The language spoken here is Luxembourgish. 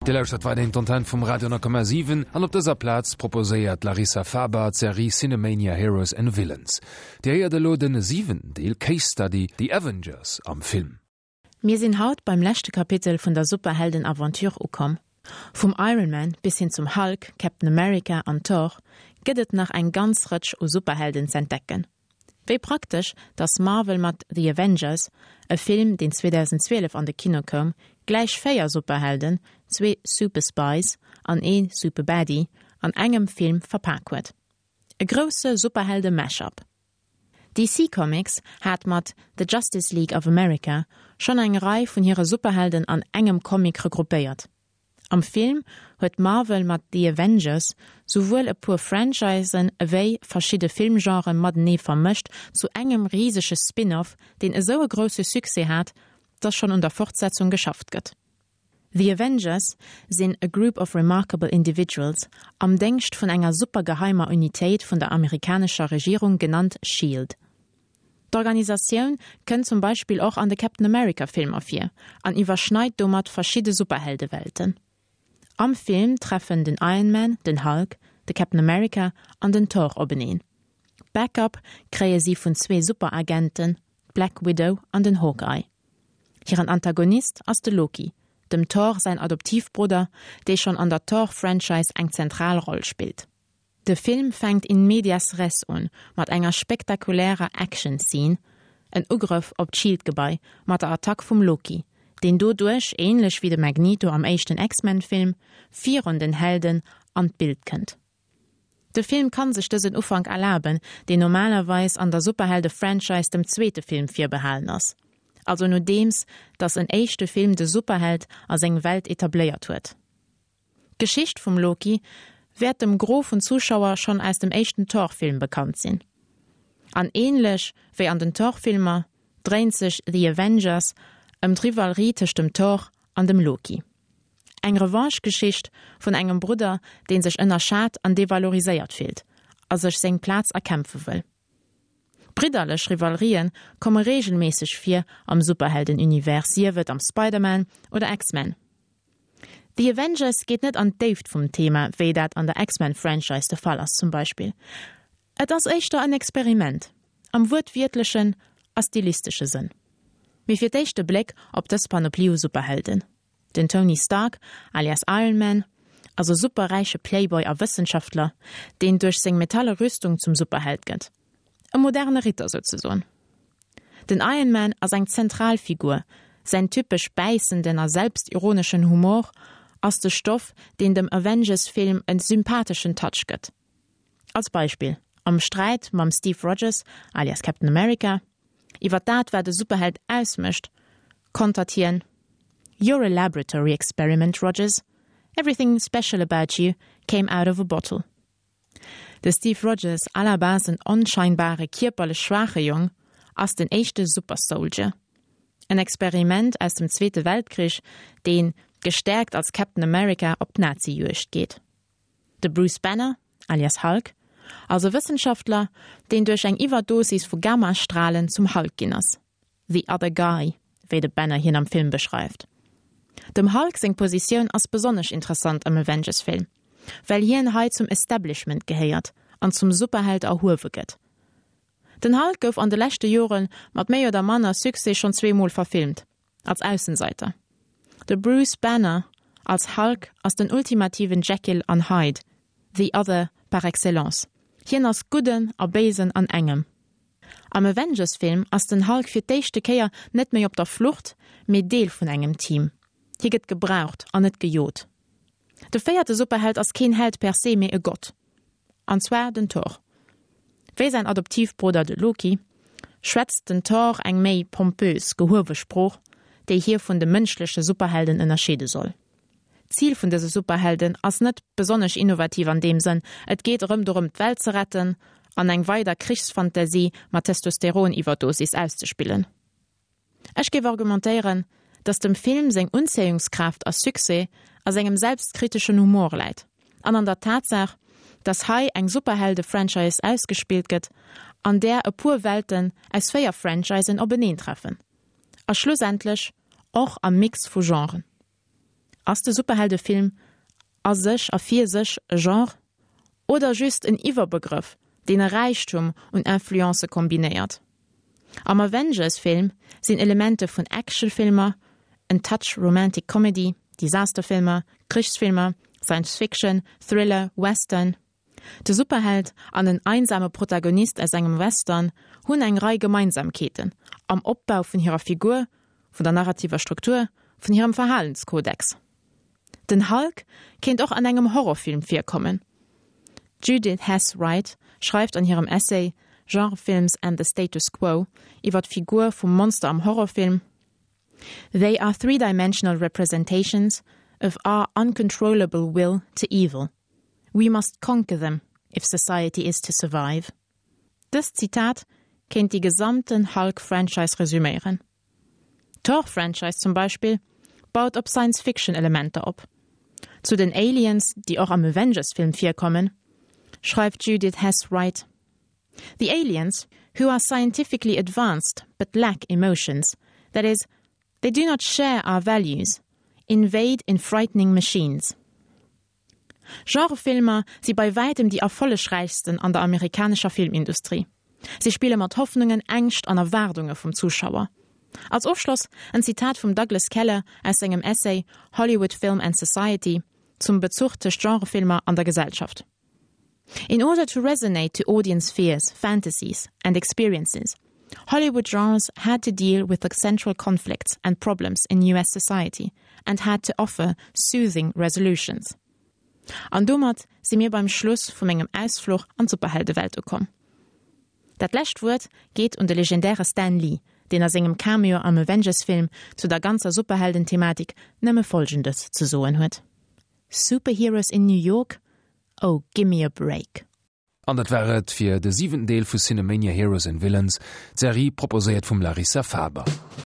Dir lauschtert weiderhin d'Antenn vum Radio 10,7 an op dëser Plaz proposéiert d'Larissa Faber d'Serie Cinemania Heroes and Villains. Dir héiert elo den siwenten Deel Case Study, The Avengers am Film. Mir sinn haut beim leschte Kapitel vun der Superhelden-Aventure ukomm. Vum Iron Man bis hin zum Hulk, Captain America an Thor gëtt et nach eng ganz Rëtsch u Superhelden z'entdecken. Wéi praktesch, dass Marvel mat The Avengers, e Film deen 2012 an de Kino koum, gläich 4 Superhelden, zwee Super-Spies an ee Super-Baddie an engem Film verpak huet. E grousse Superhelde-Mash-up. DC Comics hat mat The Justice League of America schonn eng Rei vun hire Superhelden an engem Comic regroupéiert. Am Film huet Marvel mat The Avengers souwuel e puer Franchisen ewéi verschidde Filmgenre matenee vermëscht zu engem risege Spin-off, deen esou e grousse Succès hat, dass schonn un der Fortsetzung geschafft gëtt. The Avengers sinn a group of remarkable individuals am Déngscht vun enger supergeheimer Unitéit vun der amerikanescher Regierung genannt Shield. D'Organisatioun kënnt zum Beispill och an de Captain America Filmer vir an iwwerschneit domat verschidde Superheldewelten. Am Film treffen den Iron Man, den Hulk, de Captain America an den Thor openeen. Backup kréie si vun zwee Superagenten, d'Black Widow an den Hawkeye. Hiren Antagonist ass de Loki, dem Thor säin Adoptivbrudder, dee schonn an der Thor-Franchise eng zentral Roll spillt. De Film fänkt in medias res un, mat enger spektakulärer Action-Scene, en Ugrëff op d'Shield-Gebai mat der Attack vum Loki, deen doduerch, ähnlech wéi de Magneto am éischten X-Men-Film, virun den Helden an d'Bild kënnt. De Film kann sech dësen Ufank erlaben, deen normalerweis an der Superhelde-Franchise dem zweete Film virbehalen ass, also nodeems datt en éischte Film de Superheld a seng Welt etabléiert huet. D'Geschicht vum Loki wäert dem Gros vun Zuschauer schonn aus dem éischten Thor-Film bekannt sinn. An ähnlech wéi an den Thor-Filmer dréint sech The Avengers ëm d'Rivalerie tëscht dem Thor an dem Loki. Eng Revanche-Geschicht vun engem Brudder, dee sech ënnerschat an devaloriséiert fillt a sech seng Plaz erkämpfe wëll. Bridderlech Rivalerië komme reegelméisseg vir am Superhelden-Univers, sief et am Spider-Man oder X-Men. The Avengers geet net an d'Déift vum Thema, wéi dat an der X-Men-Franchise de Fall ass zum Beispill. Et ass éischter en Experiment, am wuertwiertlechen a stilistesche Sënn. Mee fir d'éischt e Bléck op dës Panoplie u Superhelden. Den Tony Stark, alias Iron Man, ass e superräiche Playboy a Wëssenschaftler, deen duerch seng metalle Rüstung zum Superheld gëtt. E moderne Ritter souzesoen. Den Iron Man ass eng zentral Figur, säin typesch bäissenden a selbstironeschen Humor ass de Stoff, deen dem Avengers-Film en sympatheschen Touch gëtt. Als Beispill, am Sträit mam Steve Rogers, alias Captain America, iwwer dat wat e Superheld ausmécht, kontert hien, You're a laboratory experiment, Rogers. Everything special about you came out of a bottle. De Steve Rogers, à la base en onscheinbare, kierperlech schwaache Jong, ass den éischte Super Soldier. En Experiment aus dem Zweete Weltkrich, deen, gestäerkt als Captain America, op d'Nazi-Juegd geet. De Bruce Banner, alias Hulk, ass e Wëssenschaftler, deen duerch eng Iwwerdosis vu Gammastralen zum Hulk ginn ass. The other guy, wéi de Banner hien am Film beschreift. Dem Hulk seng Positioun ass besonnesch interessant am Avengers-Film, well hien hei zum Establishment gehéiert an zum Superheld erhuewe gëtt. Den Hulk gouf an de leschte Jore mat méi oder manner Succès schonn zweemol verfilmt, als Aussenseiter. De Bruce Banner als Hulk ass den ultimativen Jekyll an Hyde, the other par excellence. Hien ass Gudden a Béisen an engem. Am Avengers-Film ass den Hulk fir d'éischte Kéier net méi op der Flucht, mee Deel vun engem Team. Hie gëtt gebraucht an net gejot. De véierte Superheld ass keen Held per se, mee e Gott. An zwar den Thor. Wéi säin Adoptivbrudder de Loki, schwätzt den Thor eng méi pompös, gehuewe Sprooch, déi hie vun de mënschleche Superhelden ënnerscheede soll. D'Zil vun dëse Superhelden ass net besonnesch innovativ an deem Sënn, et geet erëm dorëm d'Welt ze retten an eng weider Krichsfantasie mat Testosteron-Iwwerdosis auszespillen. Ech géif argumentéieren, datt dem Film seng Unzéiungskraaft a Succès a sengem selbstkriteschen Humor läit an an der Tatsaach, datt hei eng Superhelde-Franchise ausgespillt gëtt, an där e puer Welten aus 4 Franchisen openeentreffen a schlussendlech och am Mix vu Genren. Ass de Superheldefilm a sech a fir sech e Genre? Oder just en Iwwerbegrëff, deen e Räichtum un Influencë kombinéiert? Am Avengers-Film sinn Elemente vun Actionfilmer, en Touch Romantic Comedy, Disasterfilmer, Krichsfilmer, Science Fiction, Thriller, Western. De Superheld an en einsame Protagonist aus engem Western hunn eng Rei Gemeinsamkeeten am Opbau vun hirer Figur, vun der narrativer Struktur, vun hirem Verhalenskodex. Den Hulk kéint och an engem Horrorfilm virkommen. D'Judith Hess Wright schreift an hirem Essay Genre Films and the Status Quo iwwer d'Figur vum Monster am Horrorfilm, They are three-dimensional representations of our uncontrollable will to evil. We must conquer them if society is to survive. Dëst Zitat kéint déi gesamten Hulk-Franchise resüméieren. D'Thor-Franchise zum Beispill baut op Science-Fiction-Elementer op. Zu den Aliens, déi och am Avengers-Film virkommen, schreift d'Judith Hess Wright, The aliens, who are scientifically advanced but lack emotions, that is, they do not share our values, invade in frightening machines. Genrefilmer si bei wäitem déi erfollegräichsten an der amerikanescher Filmindustrie. Si spille mat Hoffnungen, Ängscht an Erwaardunge vum Zuschauer. Als Ofschloss en Zitat vum Douglas Keller aus sengem Essay Hollywood Film and Society zum Bezuch tëscht Genrefilmer an der Gesellschaft. In order to resonate to audience fears, fantasies and experiences, Hollywood genres had to deal with the central conflicts and problems in US society and had to offer soothing resolutions. An domat si mir beim Schluss vu mengem Ausfluch an d'Superheldewelt ukomm. Dat lescht Wuert geet un de legendäre Stan Lee, deen a sengem Cameo am Avengers-Film zu der ganzer Superhelden-Thematik nëmme Folgendes ze soen huet, Superheroes in New York? Oh, gimme a break! An dat war et fir de siwenten Deel vu Cinemania Heroes and Villains, d'Serie proposéiert vum Larissa Faber.